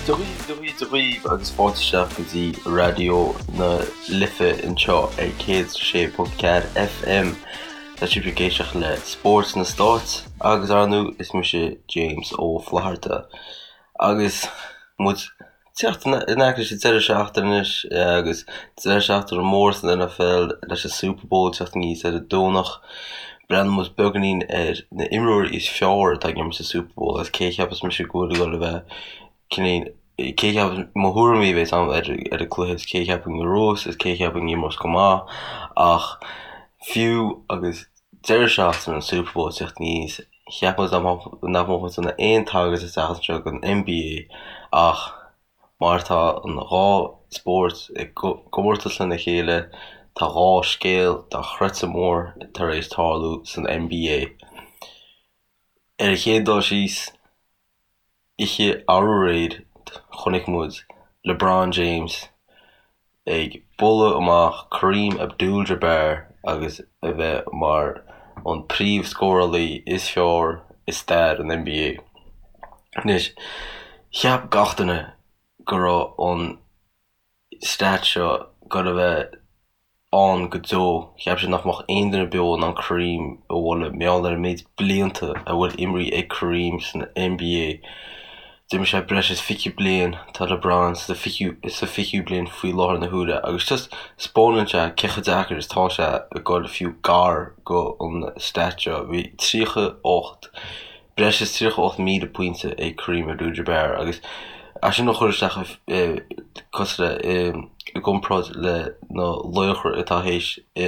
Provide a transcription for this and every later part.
Dia dhaoibh, Dia dhaoibh, Dia dhaoibh agus fáilte isteach go dtí Raidió na Life anseo ar 106.4 FM. Tá sibh ag éisteacht le Spórt sna Stáit agus ar ndóigh is mise James Ó Flatharta. Agus muid teacht in aice leis an deireadh seachtaine anois agus deireadh seachtaine mór san NFL leis an Super Bowl teacht aníos ar an Domhnach. Breathnóidh muid beagáinín ar na imreoirí is fearr atá ag imirt sa Super Bowl agus cé a cheapas mise go bhfuil ag dul a bheith cineál cé a cheapas mo thuairimí a bheas agam ar ar an cluiche is cé a cheapaim a bhuafas is cé a cheapaim a imreos go maith ach fiú agus deireadh seachtaine an Super Bowl teacht aníos Cheap muid nach mbeadh muid in ann aon tagairt isteach anseo don NBA ach mar tá an dhá spórt i gcomórtas lena chéile, tá dhá scéal dochreidte mór tar éis tarlú san NBA. Ar an chéad dul síos, Oíche aréir chonaic muid LeBron James ag bualadh amach Kareem Abdul-Jabbar agus a bheith mar an príomh-scórálaí is fearr i stair an NBA. Anois, cheap gach duine go raibh an stat seo ag dul a bheith ann go deo. Cheap siad nach mbeadh aon duine beo in ann Kareem a bhualadh mar gheall ar an méid blianta a bhfuil imrithe ag Kareem san NBA. D'imir sé breis is 20 bliain, tá LeBron sa fichiú bliain faoi láthair na huaire agus just 'spáineann sé cé chomh deacair is atá sé ag dul fiú gar go an stat seo. Bhí 38. breis is 38,000 pointe ag Kareem Abdul-Jabbar agus é sin a chur isteach cosúil le i gcomparáid le na laochra atá théis a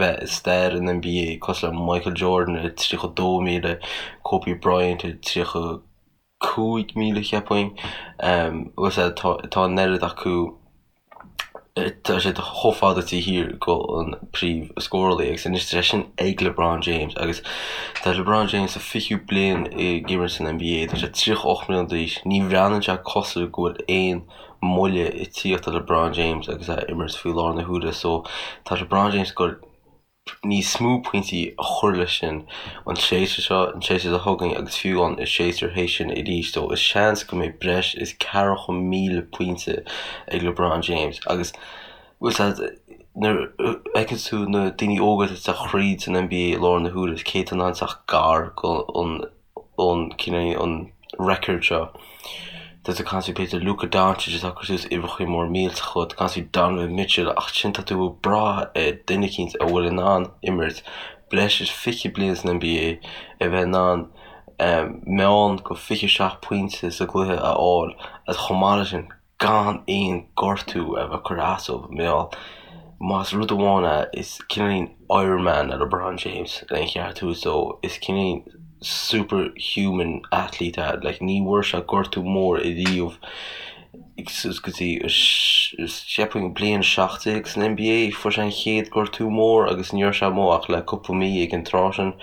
bheith i stair an NBA cosúil le Michael Jordan ar 32,000, Kobe Bryant ar 35,000 cheapfainn. Agus tá an oiread acu. Tá siad chomh fada taobh thiar go an príomh scórálaí agus anois tá sé sin ag LeBron James agus tá LeBron James sa 20ú bliain ag imirt san NBA, tá sé 38 mbliana d'aois, ní bhreathnaíonn sé cosúil go bhfuil aon moille ag tíocht ar LeBron James agus é ag imirt faoi láthair na huaire so tá LeBron James ag dul níos mó pointí a chur leis sin an séasúr seo, an séasúr seo chugainn agus fiú an séasúr théis sin arís. So is seans go mbeidh breis is 40,000 pointe ag LeBron James agus bhfuil a fhios agat nuair a fheiceann tú na daoine óga atá ag teacht thríd san NBA i láthair na huaire is cé atá in ann teacht gar go an an cineál an record seo. Tá tú ag caint faoi b'fhéidir Luka Doncic atá ag cur suas uimhreacha mór millteacha, tá tú ag caint faoi Donovan Mitchell ach sin tá tú ag brath ar duine eicínt a bhfuil in ann imirt breis is 20 bliain san NBA, a bheith in ann meán go 27 pointe sa gcluiche a fháil agus chomh maith leis sin gan aon gortú a bheith curtha as dó mar gheall más rud amháin é is cineáilín Iron Man é LeBron James lena cheart a thabhairt dó is cineáilín super human athlete é like ní bhfuair sé gortú mór ariamh suas go dtí cheapfainn bliain 17 san NBA fuair sé an chéad gortú mór agus ní raibh sé amuigh ach le cúpla mí ag an tráth sin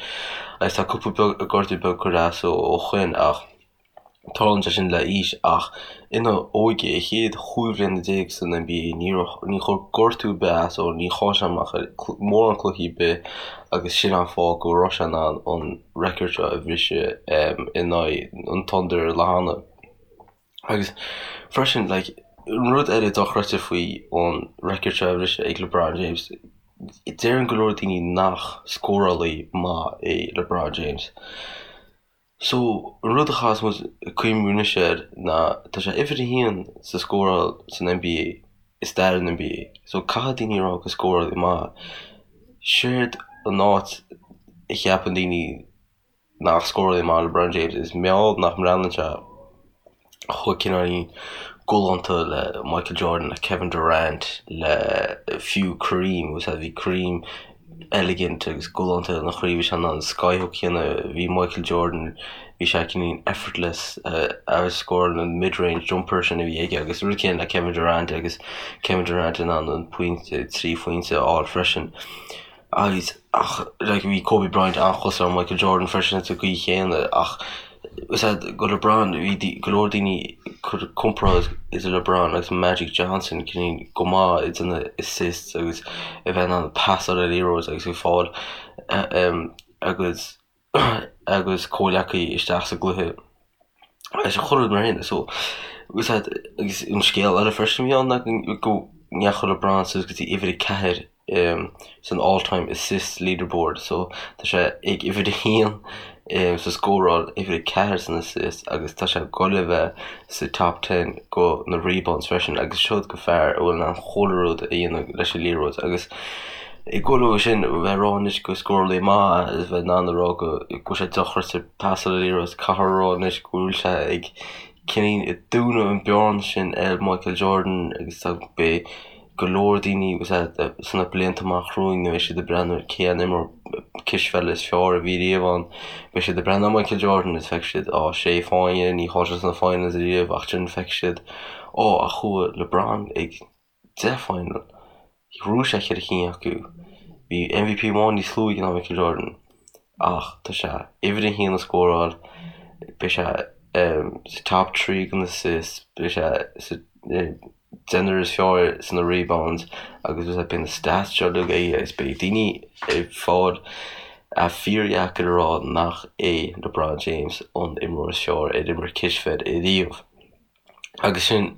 agus tá cúpla beag gortú beag curtha as dó ó shoin ach Tarlaíonn sé sin le aois ach ina óige, a chéad chúig bhliana déag san NBA, ní raibh, ní chuir gortú ar bith as dó, ní chaill sé amach ar mórán cluichí ar bith agus sin an fáth go raibh sé in ann an record seo a bhriseadh in aghaidh an Thunder an lá cheana. Agus freisin, like, an rud eile dochreidte faoi an record seo a bhriseadh ag LeBron James, deireann go leor daoine nach scórálaí maith é LeBron James. So, an rud a chaithfeas muid cuimhniú anois air ná tá sé uimhir a haon sa scóráil san NBA, i stair an NBA. So, caithfidh daoine a rá gur scórálaí maith. Séard an áit a cheapann daoine nach scórálaí maith LeBron James is mar gheall nach mbreathnaíonn sé chomh cineáilín galánta le Michael Jordan, le Kevin Durant, le fiú Kareem, agus bhí Kareem elegant agus galánta ina chaoi, bhí sé in ann skyhook a dhéanamh, bhí Michael Jordan, bhí sé cineáilín effortless agus scóráil an mid-range jumper sin a bhí aige agus rud céanna le Kevin Durant agus Kevin Durant in ann an pointe, 3 phointe a fháil freisin. Agus, ach, like, bhí Kobe Bryant an-chosúil le Michael Jordan freisin sa gcaoi chéanna ach is ea go LeBron, bhí go leor daoine ag cur comparáid idir LeBron agus Magic Johnson cineál go maith ag déanamh assists agus a bheith in ann pasáil an liathróid agus ag fáil agus agus comhleacaí isteach sa gcluiche. Agus chuile rud mar sin so agus agus an scéal eile freisin a bhí ann ná go ndeachaigh LeBron suas go dtí uimhir 4 san all time assist leaderboard so tá sé ag uimhir 1 sa scóráil, uimhir 4 san assist agus tá sé ag dul a bheith sa top ten go na rebounds freisin agus seod go fear a bhfuil in ann chuile rud a dhéanamh leis an liathróid agus ag dul ó sin a bheith ag rá anois go scórálaí maith é is bheith in ann a rá go bhfuil sé dochreidte ag pasáil an liathróid caithfear a rá anois go bhfuil sé ag cineál ag dúnadh an bearna sin ar Michael Jordan agus tá beidh go leor daoine agus sna blianta amach romhainn nuair a bheidh siad ag breathnú ar cé an imreoir cispheile is fearr a bhí riamh ann beidh siad ag breathnú ar Michael Jordan is feicfidh siad á sé fáinne ní chaill sé sna finals riamh ach ansin feicfidh siad ó ach chuaigh LeBron ag 10 final. Ghnóthaigh sé cheithre cinn acu. Bhí MVP amháin níos lú aige ná Michael Jordan ach tá sé uimhir a haon i scóráil, beidh sé sa top 3 go na assists, beidh sé sa deichniúr is fearr sna rebounds agus beidh na stats seo uilig aige agus beidh daoine ag fáil é fíordheacair a rá nach é LeBron James an imreoir is fearr ar imir cispheil ariamh. Agus sin.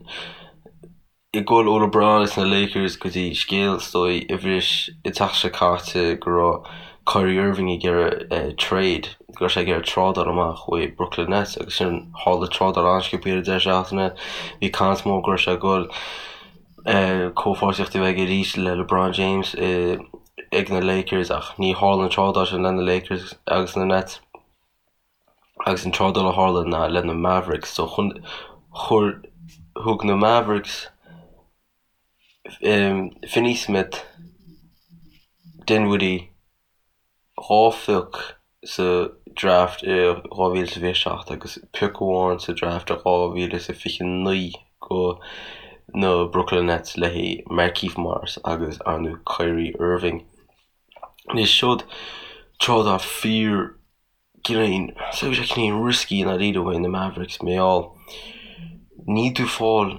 Ag dul ó LeBron is na Lakers go dtí scéal is dóigh a bhris an tseachtain seo caite go raibh Kyrie Irving ag iarraidh trade, go raibh sé ag iarraidh trádáil amach uaidh Brooklyn Nets agus sin tharla trádáil an-sciobtha ar an deireadh seachtaine. Bhí caint mór go raibh sé ag dul comhpháirtíocht a bheith aige arís le LeBron James ag na Lakers ach ní tharla an trádáil sin le na Lakers agus na Nets. Agus an trádáil a tharla ná le na Mavericks. So chun, chuir, thug na Mavericks Finney Smith, Dinwiddie, 2 phioc sa draft i 2027 agus pioc amháin sa draft i 2029 go na Brooklyn Nets le haghaidh Markieff Morris agus ar ndóigh Kyrie Irving. Anois seod trádáil fíor cineál, so bhí sé cineál risky i ndáiríre uaidh na Mavericks mar gheall níl tú ag fáil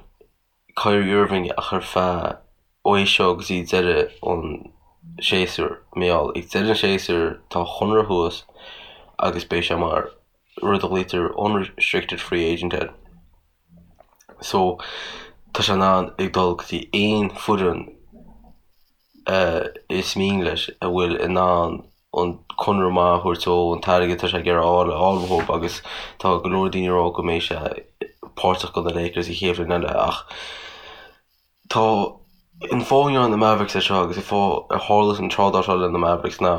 Kyrie Irving ach ar feadh ó é seo go dtí deireadh an séasúir mar gheall ag deireadh an séasúir tá a chonradh thuas agus beidh sé mar rud a ghlaoitear unrestricted free agent air. So tá sé in ann ag dul go dtí aon foireann is mian leis a bhfuil in ann an conradh maith a thabhairt dó, an t-airgead atá sé ag iarraidh a fháil a fháil uathu agus tá go leor daoine ag rá go mbeidh sé páirteach do na Lakers an chéad bhliain eile ach tá an fáth a ndearna na Mavericks é seo agus an fáth ar tharla an trádáil seo le na Mavericks ná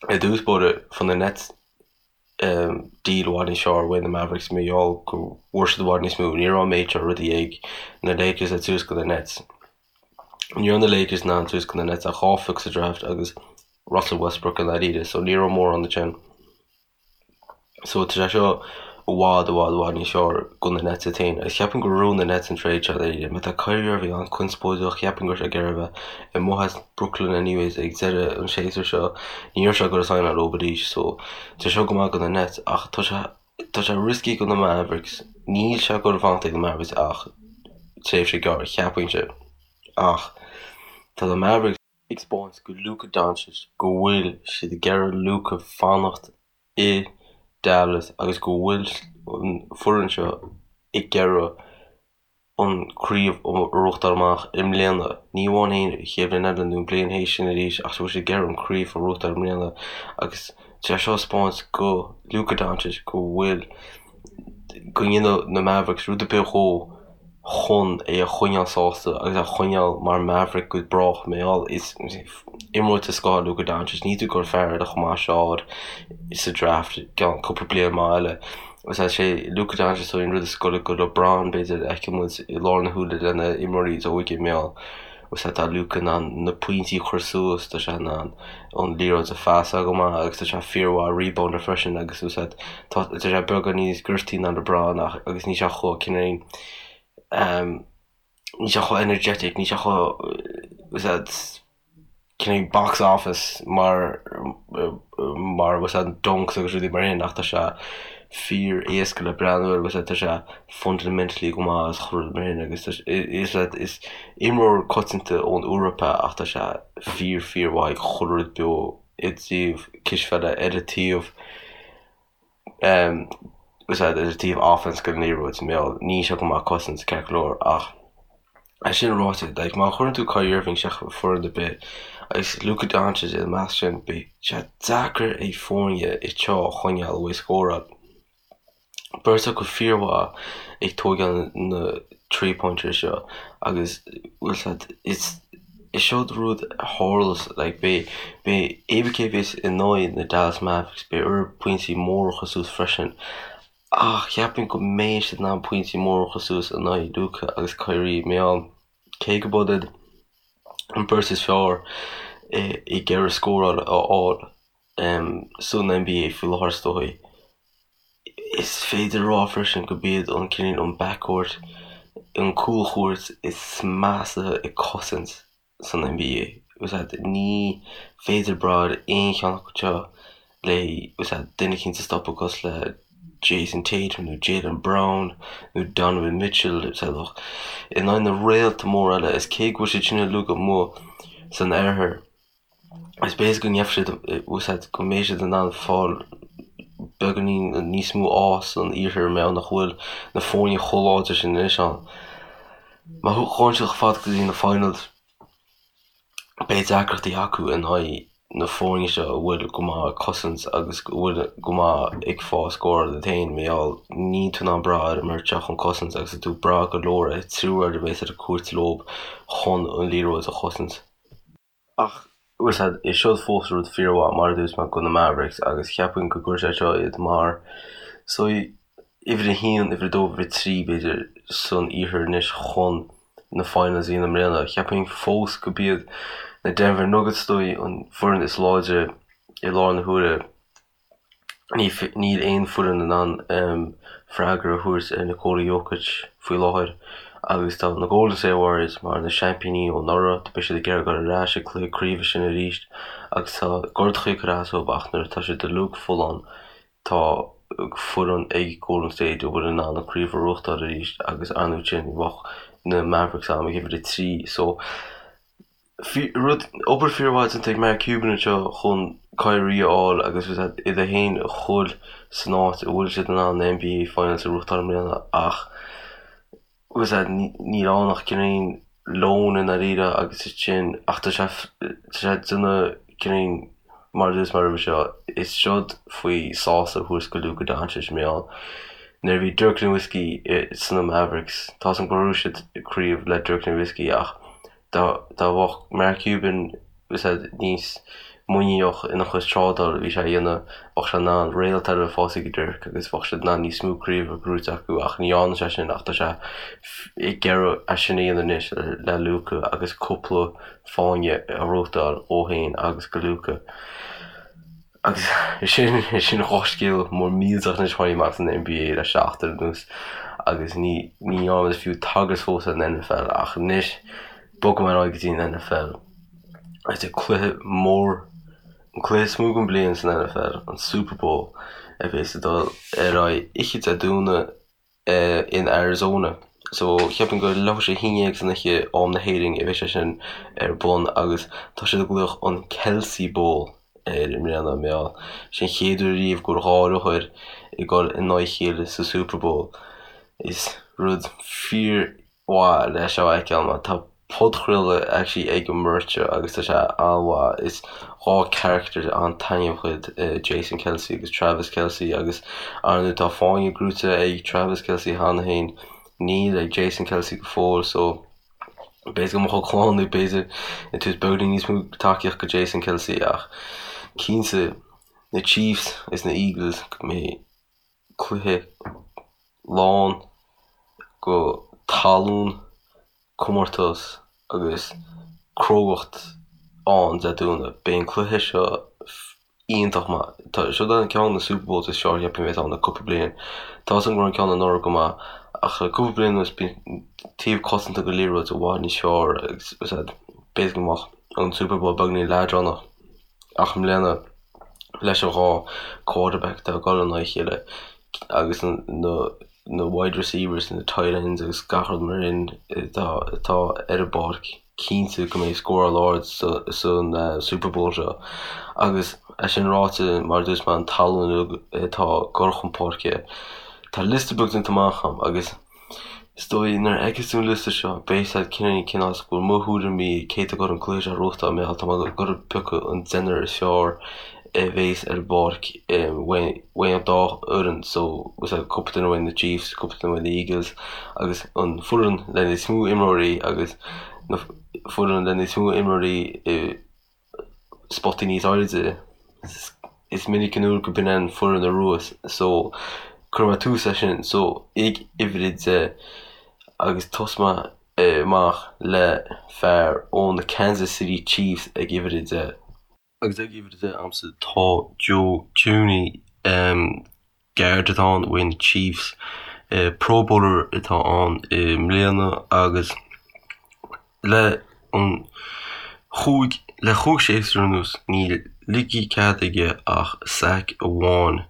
i dtús báire fuair na Nets deal i bhfad níos fearr uaidh na Mavericks mar gheall go bhfuair siad i bhfad níos mó. Ní raibh an méid seo rudaí ag na Lakers le tabhairt do na Nets. Ní raibh na Lakers in ann tabhairt do na Nets ach 2 phioc sa draft agus Russell Westbrook i ndáiríre so ní raibh mórán ansin. So tá sé seo i bhfad i bhfad i bhfad níos fearr do na Nets iad féin agus cheapfainn gur ghnóthaigh na Nets an trade seo dáiríre. Má tá Kyrie Irving an-conspóideach cheapfainn go raibh sé ag iarraidh a bheith amuigh as Brooklyn anyways ag deireadh an séasúir seo. Ní raibh sé ag dul a signáil leo arís so tá sé seo go maith do na Nets ach tá sé tá sé risky do na Mavericks. Níl sé ag dul a fanacht ag na Mavericks ach tréimhse gearr cheapfainnse. Ach tá na Mavericks ag 'spáint go Luka Doncic go bhfuil siad ag iarraidh Luka fanacht i Dallas agus go bhfuil an foireann seo ag iarraidh an craobh a ghnóthachtáil amach i mbliana. Ní amháin an chéad bhliain eile nó an bliain théis sin arís ach go bhfuil siad ag iarraidh an craobh a ghnóthachtáil i mbliana agus tá sé seo ag 'spáint go Luka Doncic go bhfuil go ndéanfaidh na Mavericks rud ar bith dhó chun é a choinneáil sásta agus é a choinneáil mar Maverick go brách mar gheall is imreoir den scoth é Luka Doncic níl tú ag dul fear eile chomh maith seo a fháil sa draft i gceann cúpla bliain maith eile. Is é Luka Doncic an rud is gaire go LeBron b'fhéidir a fheicfidh muid i lár na huaire le na imreoirí is óige mar gheall is tá Luka in ann na pointí a chur suas, tá sé in ann an liathróid a phasáil go maith agus tá sé fíormhaith rebounder freisin agus is tá tá sé beagán níos gortaí ná LeBron ach agus níl sé chomh cineál níl sé chomh energetic, níl sé chomh is cineál box office mar mar is dunks agus rudaí mar sin ach tá sé fíor éasca le breathnú air agus tá sé fundamentally go maith agus chuile rud mar sin agus is is imreoir coitianta ón Eoraip é ach tá sé fíor fíor mhaith ag chuile rud beo i dtaobh cispheile ar an taobh. Bhfuil a fhios agat, ar taobh offense den liathróid, mar gheall, níl sé go maith cosaint, ceart go leor, ach é sin ráite, like, má chuireann tú Kyrie Irving isteach i foireann ar bith agus Luka Doncic ina measc sin, beidh sé deacair ag foirne iad seo a choinneáil uaidh scóráil. Beirt acu fíormhaith ag tóigeáil na three-pointers seo agus bhfuil a fhios agat, is is seod rud a tharlas like beidh beidh cé bith cé a bheas in aghaidh na Dallas Mavericks beidh orthu pointí móra a chur suas freisin ach cheapfainn go mbeidh siad in ann pointí móra a chur suas in aghaidh Luka agus Kyrie mar gheall cé go b'iad an beirt is fearr ag iarraidh scóráil a fháil san NBA faoi láthair is dóigh. Is féidir a rá freisin go b'iad an cineál an backcourt, an cúlchuairt is measa ag cosaint san NBA. Bhfuil a fhios agat, ní féidir brath ar aon cheann acu seo le bhfuil a fhios agat, duine eicínt a stopadh cosúil le Jayson Tatum nó Jaylen Brown nó Donovan Mitchell, bhfuil a fhios agat, in aghaidh na réalta móra eile is cé go bhfuil siad sin uilig amuigh san oirthear, Is b'fhéidir go ngeobhaidh siad, bhfuil a fhios agat, go mbeidh siad in ann fáil beagáinín níos mó ádh san iarthar mar gheall nach bhfuil na foirne chomh láidir sin anois ann. Má ghabhann siad chomh fada go dtí na finals, beidh deacrachtaí acu in aghaidh na foirne seo a bhfuil go maith ag cosaint agus go bhfuil go maith ag fáil scóráil iad féin mar gheall níl tú in ann brath ar an mbeirt seo chun cosaint agus tá tú ag brath go leor ar triúr a bheas ar an cúirt leo chun an liathróid a chosaint. Ach, bhfuil a fhios agat, is seod fós rud fíormhaith mar a dúirt mé do na Mavericks agus cheapfainn go gcuirfidh sé seo iad mar so uimhir a haon, uimhir a dó, uimhir a trí b'fhéidir san iarthar anois chun na finals a dhéanamh i mbliana. Cheapfainn fós go b'iad na Denver Nuggets is dóigh an foireann is láidre i láthair na huaire. Níl aon foireann in ann freagra a thabhairt ar Nikola Jokic faoi láthair agus tá na Golden State Warriors mar na seaimpíní ó anuraidh, beidh siad ag iarraidh dul ar ais ag cluiche craoibhe sin arís agus tá gortuithe ag cur as dóibh ach nuair atá siad uilig folláin tá foireann ag Golden State a bhfuil in ann an craobh a ghnóthachtáil arís agus ar ndóigh sin bheadh na Mavericks agam ag uimhir 3 so Rud, obair fíormhaith déanta ag Mark Cuban anseo chun Kyrie a fháil agus iad féin a chur san áit a bhfuil siad in ann na NBA Finals a ghnóthachtáil i mbliana ach bhfuil a fhios agat níl ann ach cineál loan i ndáiríre agus sin ach tá sé tá sé ag déanamh cineál mar a dúirt mé roimhe seo is seod faoi sásamh a thabhairt go Luka Doncic mar gheall nuair a bhí Dirk Nowitzki sna Mavericks tá a fhios agam gur ghnóthaigh siad craobh le Dirk Nowitzki ach Dá mbeadh Mark Cuban níos muiníneach ina chuid trádáil a bhí sé a dhéanamh, bheadh sé in ann réalt eile a fháil ag Dirk agus bheadh siad in ann níos mó craobh a ghnóthú acu ach ní dhearna sé sin ach tá sé ag iarraidh é sin a dhéanamh anois le Luka agus cúpla fáinne a ghnóthachtáil dó féin agus go Luka. Agus sin sin dhá scéal mór millteach anois a tháinig amach san NBA le seachtain anuas agus ní ní dhearna muid fiú tagairt fós ar an NFL ach anois bogfaidh mé ar aghaidh go dtí an NFL agus an cluiche mór an cluiche is mó den bliain san NFL, an Super Bowl a bheas ag dul ar aghaidh oíche Dé Domhnaigh in Arizona. So cheapfainn gur leathuair tar éis a haon dhéag san oíche am na hÉireann a bheidh sé sin ar bun agus tá siad ag glaoch an Kelce Bowl air i mbliana mar gheall sé an chéad uair riamh go bhfuil dhá reathaire ag dul in aghaidh a chéile sa Super Bowl. Is rud fíor mhaith le seo a fheiceáil mar tá podchraoladh actually ag an mbeirt seo agus tá sé an-mhaith. Is dhá character an-taitneamhach iad Jason Kelce agus Travis Kelce agus ar ndóigh tá fáinne gnóthaithe ag Travis Kelce cheana féin, níl ag Jason Kelce go fóill so b'fhéidir go mbeadh a chlann ag b'fhéidir ag tabhairt beagáinín níos mó tacaíocht go Jason Kelce ach cinnte na Chiefs is na Eagles go mbeidh cluiche lán go tallann, comórtas agus crógacht ann Dé Domhnaigh. Beidh an cluiche seo iontach maith. Tá seo an ceann de na Super Bowls is fearr cheapfainn a bheas ann le cúpla bliain. Tá a fhios agam go raibh an ceann anuraidh go maith ach le cúpla bliain anuas bíonn taobh cosanta den liathróid i bhfad níos fearr agus b'fhéidir go mbeadh an Super Bowl beagáinín leadránach ach i mbliana leis an dhá quarterback atá ag dul in aghaidh a chéile agus na na wide receivers, na tight ends agus gach rud mar sin atá atá ar an bpáirc, cinnte go mbeidh scóráil ard san Super Bowl seo. Agus é sin ráite, mar a dúirt mé, an tallann atá ag dul chun páirce. Tá liosta beag déanta amach agam agus is dóigh nuair a fheicfeas tú an liosta seo beidh a fhios agat cineál cén fáth go bhfuil mo thuairimí cé atá ag dul an cluiche seo a ghnóthachtáil mar gheall tá mé ag dul a piocadh an deichniúr is fearr a bhéas ar an bpáirc uaidh an dá fhoireann so cúpla duine uaidh na Chiefs, cúpla duine uaidh na Eagles agus an foireann le níos mó imreoirí agus na foireann le níos mó imreoirí i spotaí níos airde. Is minic an uair go b'in an foireann a bhuas so cuirfidh mé tús leis sin so ag uimhir a 10 agus tosóidh mé amach le fear ó na Kansas City Chiefs ag uimhir a 10. Agus ag uimhir a 10 a'msa tá Joe Thuney, guard atá ann uaidh na Chiefs. Pro Bowler atá ann i mbliana agus le an chúig le chúig séasúr anuas níl ligthe cead aige ach sack amháin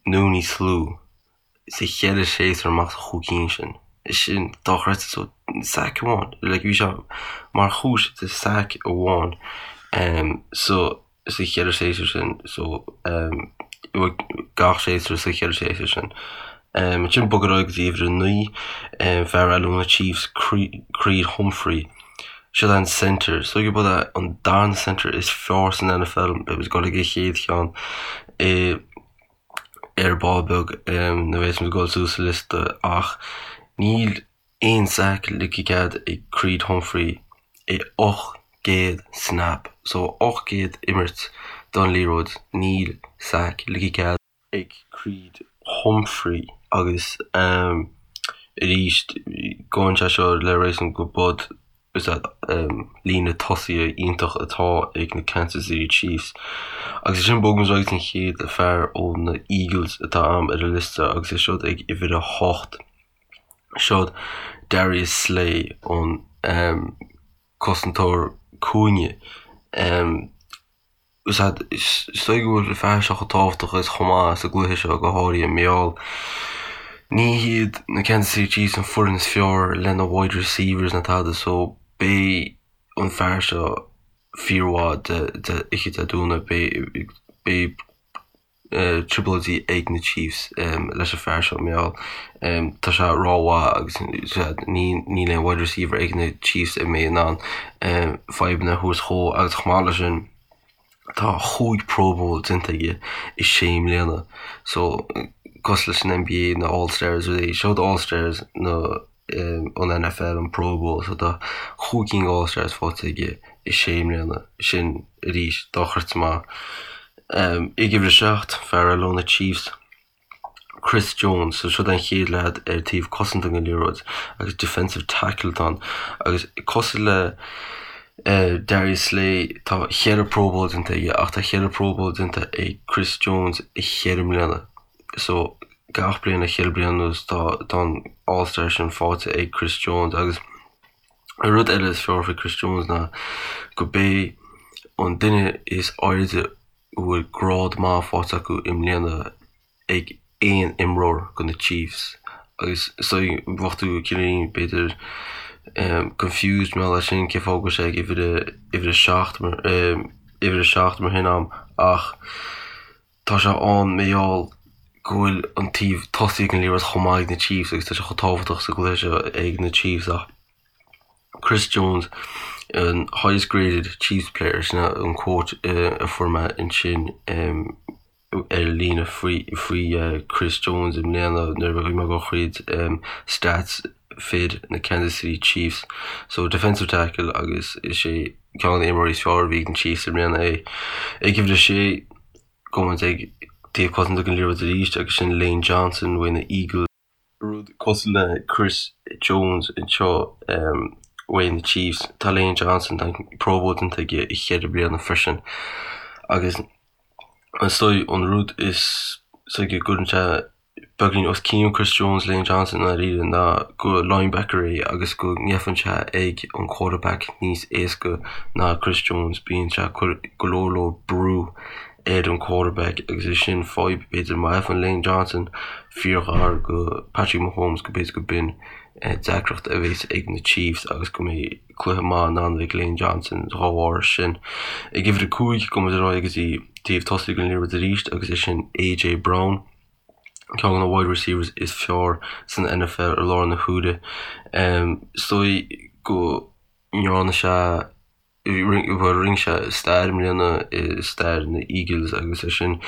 nó níos lú. sa cheithre séasúr amach sa chúig cinn sin. Sin dochreidte so sack amháin. Like bhí sé mar chúis de sack amháin um, so sa cheithre séasúr sin so um, gach séasúr sa cheithre séasúr sin. Um, ansin bog ar aghaidh go dtí uimhir a 9, um, fear eile ó na Chiefs, Creed Humphrey. Seo an center, so gurb é an darna center is fearr san NFL, beidh muid ag dul ag an chéad cheann. I, ar ball beag nuair a bheas muid ag dul suas sa liosta ach níl aon sack ligthe cead ag Creed Humphrey i 800 snap so 800 imirt don liathróid níl sack ligthe cead ag Creed Humphrey agus arís gabhann sé seo le réasún go bud Is líne tosaithe iontach atá ag na Kansas City Chiefs. Agus ansin bogfaidh muid ar aghaidh go dtí an chéad fear ó na Eagles atá a'm ar an liosta agus é siúd ag uimhir a hocht. Siod Darius Slay an cosantóir cúinne. Is dóigh go bhfuil an fear seo chomh tábhachtach is chomh maith sa gcluiche seo, go háirithe mar gheall ní hiad na Kansas City Chiefs an foireann is fearr lena wide receivers ná tada so beidh an fear seo fíormhaith de oíche Dé Domhnaigh. Beidh beidh trioblóidí ag na Chiefs leis an fear seo mar gheall tá sé rómhaith agus níl aon wide receiver ag na Chiefs a mbeidh in ann fadhbanna a thabhairt dhó agus chomh maith leis sin Tá chúig Pro Bowl déanta aige i sé mbliana so cosúil leis an NBA na All Stars rudaí seo All Stars na an NFL an Pro Bowl so tá chúig cinn All Stars faighte aige i sé mbliana sin arís dochreidte maith. Ag uimhir a 7 fear eile ó na Chiefs. Chris Jones, so siod an chéad leaid ar taobh cosanta den liathróid agus defensive tackle atá ann agus cosúil le Darius Slay tá cheithre Pro Bowl déanta aige ach tá cheithre Pro Bowl déanta ag Chris Jones i cheithre mbliana so gach bliain le cheithre bliana anuas tá tá an All Star sin faighte ag Chris Jones agus an rud eile is fearr faoi Chris Jones ná go b'é an duine is airde a bhfuil grád maith faighte acu i mbliana ag aon imreoir do na Chiefs agus so bheadh tú cineál b'fhéidir confused mar gheall air sin cé fáth go bhfuil sé ag uimhir a uimhir a 7 mar uimhir a 7 mar sin a'm ach tá sé ann mar gheall go bhfuil an taobh tosaigh den liathróid chomh maith ag na Chiefs agus tá sé chomh tábhachtach sa gcluiche seo ag na Chiefs ach Chris Jones, an highest graded Chiefs player, sin an quote a fuair mé ansin ar líne faoi faoi Chris Jones i mbliana nuair a bhí mé ag dul thríd stats fir na Kansas City Chiefs. So defensive tackle agus is é ceann de na imreoirí is fearr a bhí ag na Chiefs i mbliana é. Ag uimhir a sé, gabhfaidh muid ag taobh cosanta den liathróid arís agus sin Lane Johnson uaidh na Eagles. Rud cosúil le Chris Jones anseo uaidh na Chiefs, tá Lane Johnson, tá an Pro Bowl déanta aige i cheithre bliana freisin agus is dóigh an rud is dóigh go gcuireann sé beagáinín os cionn Chris Jones, Lane Johnson i ndáiríre ná go linebacker é agus go ngeibheann sé ag an quarterback níos éasca ná Chris Jones, bíonn sé ag cur go leor leor brú ar an quarterback agus é sin fadhb b'fhéidir má fhaigheann Lane Johnson fíorghar go Patrick Mahomes go b'fhéidir go b'in deacracht a bheas ag na Chiefs agus go mbeidh cluiche maith in ann ag Lane Johnson dá bharr sin. Ag uimhir 5 gabhfaidh muid ar aghaidh go dtí taobh tosaigh den liathróid arís agus é sin AJ Brown. Ceann de na wide receivers is fearr san NFL i láthair na huaire. Is dóigh go ndearna sé, bhuel rinne sé stair i mbliana i stair na Eagles agus é sin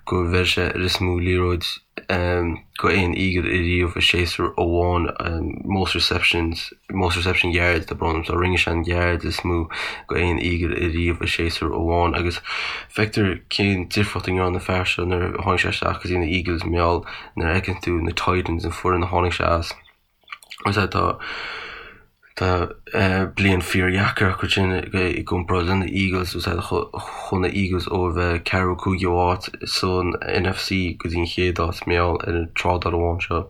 go bhfuair sé an is mó liathróid go aon Eagle ariamh i séasúr amháin, most receptions, most reception yards tá brón orm, so rinne sé an yards is mó go aon Eagle ariamh i séasúr amháin agus feictear cén difríocht a ndearna an fear seo nuair a tháinig sé isteach go dtí na Eagles mar gheall nuair a fheiceann tú na Titans an foireann a tháinig sé as agus tá tá bliain fíordheacair acu sin i gcomparáid le na Eagles agus chuaigh na Eagles ó a bheith ceathrú cúigiú áit san NFC go dtí an chéad áit mar gheall ar an trádáil amháin seo.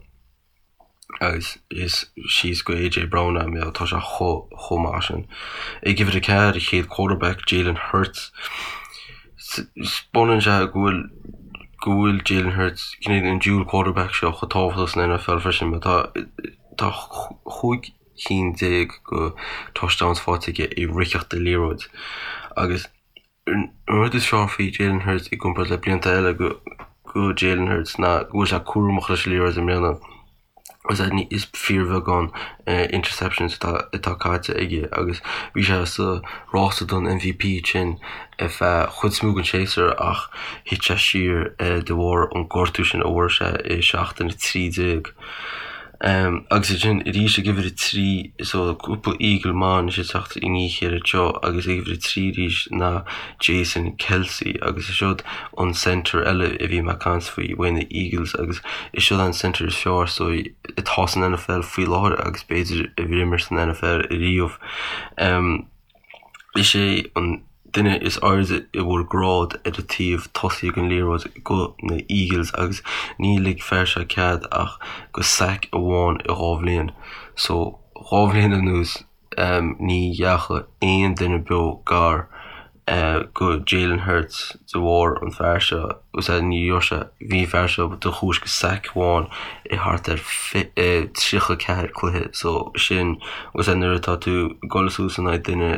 agus is síos go AJ Brown é mar tá sé chomh chomh maith sin. Ag uimhir a 4, an chéad quarterback, Jalen Hurts. Taispeánann sé go bhfuil go bhfuil Jalen Hurts, cineál an dual quarterback seo chomh tábhachtach san NFL freisin mar tá tá 15 cinn go touchdowns faighte aige i ritheacht de liathróid agus An rud is fearr faoi Jalen Hurts i gcomparáid le blianta eile go Jalen Hurts ná go bhfuil sé cúramach leis an liathróid i mbliana agus is fíorbheagán interceptions atá caite aige agus bhí sé sa rása don MVP sin ar feadh chuid is mó den séasúr ach thit sé siar de bharr an gortú sin a bhfuair sé i seachtain 13. Agus ansin arís ag uimhir a 3, so cúpla Eagle maith anois ag teacht i ndiaidh a chéile anseo agus ag uimhir a 3 arís ná Jason Kelce agus is siod an centre eile a bhí mé ag caint faoi uaidh na Eagles agus is siod an centre is fearr so atá san NFL faoi láthair agus b'fhéidir a d'imir san NFL ariamh. Is é an duine is airde a bhfuair grád ar an taobh tosaigh den liathróid go na Eagles agus ní lig fear seo cead ach go sack amháin i 2 bhliain. So 2 bhliain anuas ní dheachaigh aon duine beo gar go Jalen Hurts de bharr an fear seo agus ní raibh sé bhí an fear seo de chúis go sack amháin i thart ar 34 cluiche so sin agus nuair atá tú ag dul suas in aghaidh duine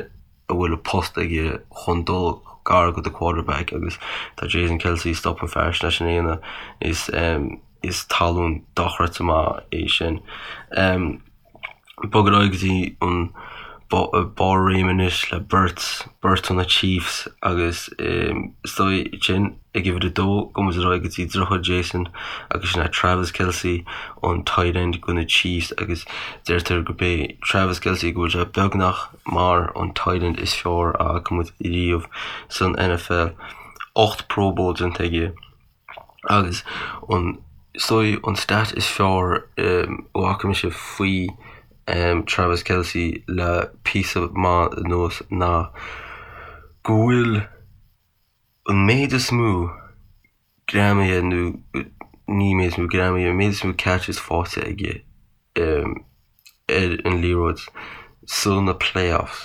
a bhfuil a post aige chun dul gar go do quarterback agus tá Jason Kelce stop an fear sin leis an aonadh is is talún dochreidte maith é sin. Bog ar aghaidh go dtí an barr réime anois le beirt, beirt ó na Chiefs agus is dóigh sin ag uimhir a dó gabhfaidh muid ar aghaidh go dtí deartháir Jason agus sin é Travis Kelce an tight end go na Chiefs agus deirtear gurb é Travis Kelce go bhfuil sé beagnach mar an tight end is fearr a fhaca muid riamh san NFL. 8 Pro Bowl déanta aige agus an is dóigh an stat is fearr a bhfaca mise faoi Travis Kelce le píosa maith anuas ná go bhfuil an méid is mó greamaithe nó ní méid is mó greamaithe, an méid is mó catches faighte aige ar an liathróid sna playoffs.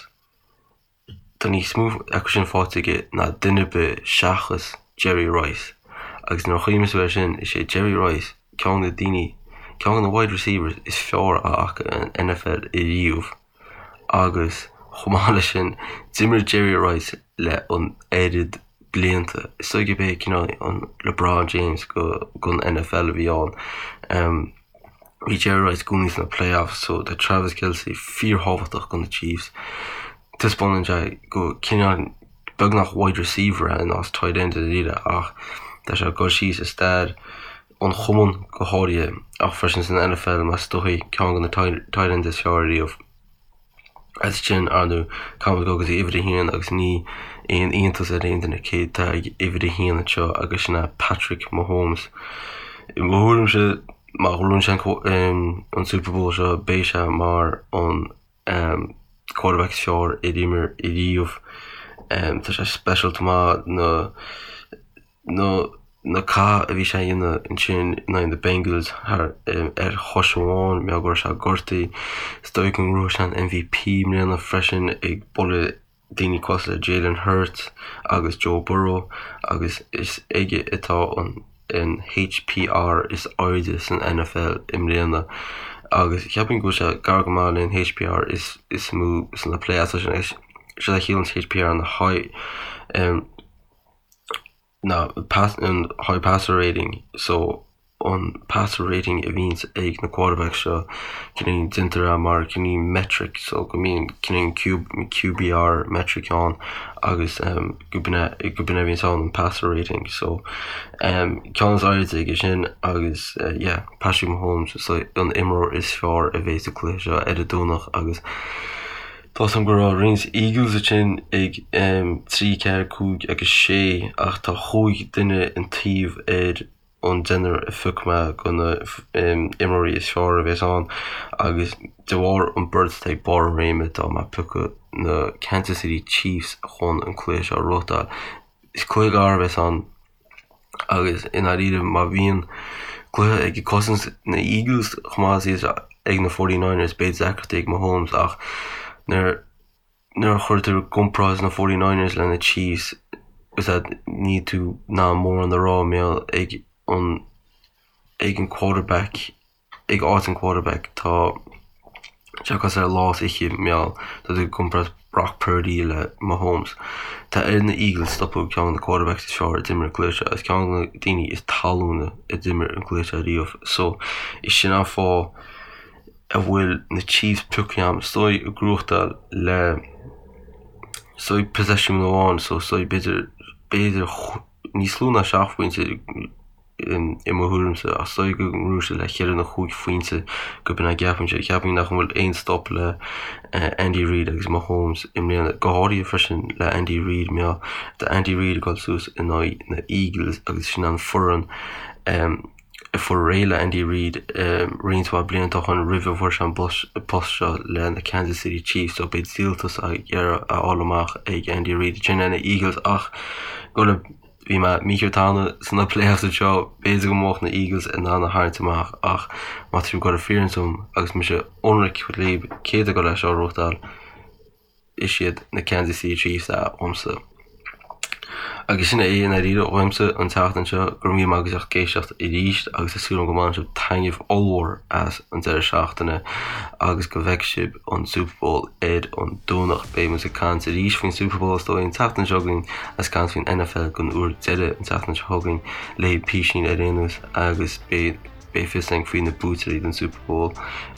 Tá níos mó acu sin faighte aige ná duine ar bith seachas Jerry Rice. Agus nuair a chuimhníonn tú air sin, is é Jerry Rice ceann de na daoine, ceann de na wide receivers is fearr a fhaca an NFL ariamh. Agus chomh maith leis sin, d'imir Jerry Rice le an oiread blianta. Is dóigh gurb é cineál an LeBron James go gon NFL a bhí ann. Bhí Jerry Rice i gcónaí sna playoffs so tá Travis Kelce fíorthábhachtach do na Chiefs. Taispeánann sé go cineál beagnach wide receiver é in áit tight end i ndáiríre ach tá sé ag dul síos i stair an chumainn go háirithe ach freisin san NFL mar is dóigh ceann de na tight ends is fearr ariamh. As sin, ar ndóigh, caithfidh muid dul go dtí uimhir a haon agus ní aon iontas ar aon duine cé atá ag uimhir a haon anseo agus sin é Patrick Mahomes. I mo thuairimse, má ghnóthaíonn sé an Super Bowl seo, beidh sé mar an quarterback is fearr ar imir ariamh. Tá sé speisialta maith na. na na cath a bhí sé a dhéanamh ansin in aghaidh na Bengals thar ar chois amháin, mar go raibh sé gortaithe. Is dóigh go ngnóthóidh sé an MVP i mbliana freisin ag bualadh daoine cosúil le Jalen Hurts agus Joe Burrow agus is aige atá an an HPR is airde san NFL i mbliana agus cheapfainn go bhfuil sé gar go maith le an HPR is is mó sna playoffs sin is sé a chiallaíonn HPR na high um, ná an high passer rating so. an passer rating a bhíonns ag na quarterbacks seo, cineál déantar é mar cineál metric so go mbíonn cineál QBR metric ann agus go b'in é go b'in é a bhíonns ann an passer rating so ceann is airde aige sin agus yeah Patrick Mahomes is an imreoir is fearr a bheidh sa cluiche seo ar an Domhnach agus Tá 'fhios a'm go raibh roinnt Eagles ansin ag 3, 4, 5 agus 6 ach tá chúig duine an taobh ar an deichniúr a phioc mé do na imreoirí is fearr a bheas ann agus de bharr an beirt atá ag barr a réime tá mé ag piocadh na Kansas City Chiefs chun an cluiche seo a ghnóthachtáil. Is cluiche gar a bheas ann agus i ndáiríre má bhíonn cluiche ag cosaint na Eagles chomh maith is ag na 49ers beidh deacrachtaí ag Mahomes ach nuair Nuair a chuirtear i gcomparáid na 49ers le na Chiefs, is ea níl tú in ann mórán a rá mar gheall ag an ag an quarterback ag áit an quarterback tá sé cosúil le lá is oíche mar gheall tá tú ag comparáid Brock Purdy le Mahomes. Tá ar na Eagles stopadh ceann de na quarterbacks is fearr a d'imir an cluiche seo is ceann de na daoine is talúna a d'imir an cluiche seo riamh so is sin an fáth a bhfuil na Chiefs pioctha agam is dóigh ag gnóthachtáil le is dóigh possession amháin so is dóigh b'fhéidir b'fhéidir níos lú ná 7 phointe i mo thuairimse ach is dóigh go ngnóthóidh siad le cheithre nó chúig phointe go b'in é a gceapaimse. Ceapaim nach bhfuil aon stop le Andy Reid agus Mahomes i mbliana go háirithe freisin le Andy Reid mar tá Andy Reid ag dul suas in aghaidh na Eagles agus sin an foireann a fuair réidh le Andy Reid roinnt mhaith blianta ó shin roimh a bhfuair sé an post seo le na Kansas City Chiefs so beidh díoltas ag iarraidh a fháil amach ag Andy Reid ansin ar na Eagles ach go le bhí mé mícheart cheana sna playoffs anseo b'fhéidir go mbeadh na Eagles in ann a tharraingt amach ach má tá sibh ag dul a fírinne dom agus mise ionraic libh cé atá ag dul é seo a ghnóthachtáil is iad na Kansas City Chiefs é uaimse. Agus sin é i ndáiríre uaimse an tseachtain seo, go raibh míle maith agaibh as ucht éisteacht arís agus tá súil agam go mbaineann sibh taitneamh ollmhór as an deireadh seachtaine agus go bhfeicfidh sibh an Super Bowl ar an Domhnach. Beidh muid ag caint arís faoin Super Bowl is dóigh an tseachtain seo chugainn agus caint faoin NFL don uair deiridh an tseachtain seo chugainn le písín ar aon nós agus beidh Beidh fios againn faoi na buaiteoirí den Super Bowl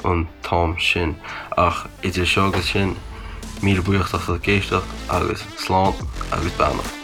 an t-am sin. Ach idir seo agus sin, míle buíochas as ucht éisteacht agus slán agus beannacht.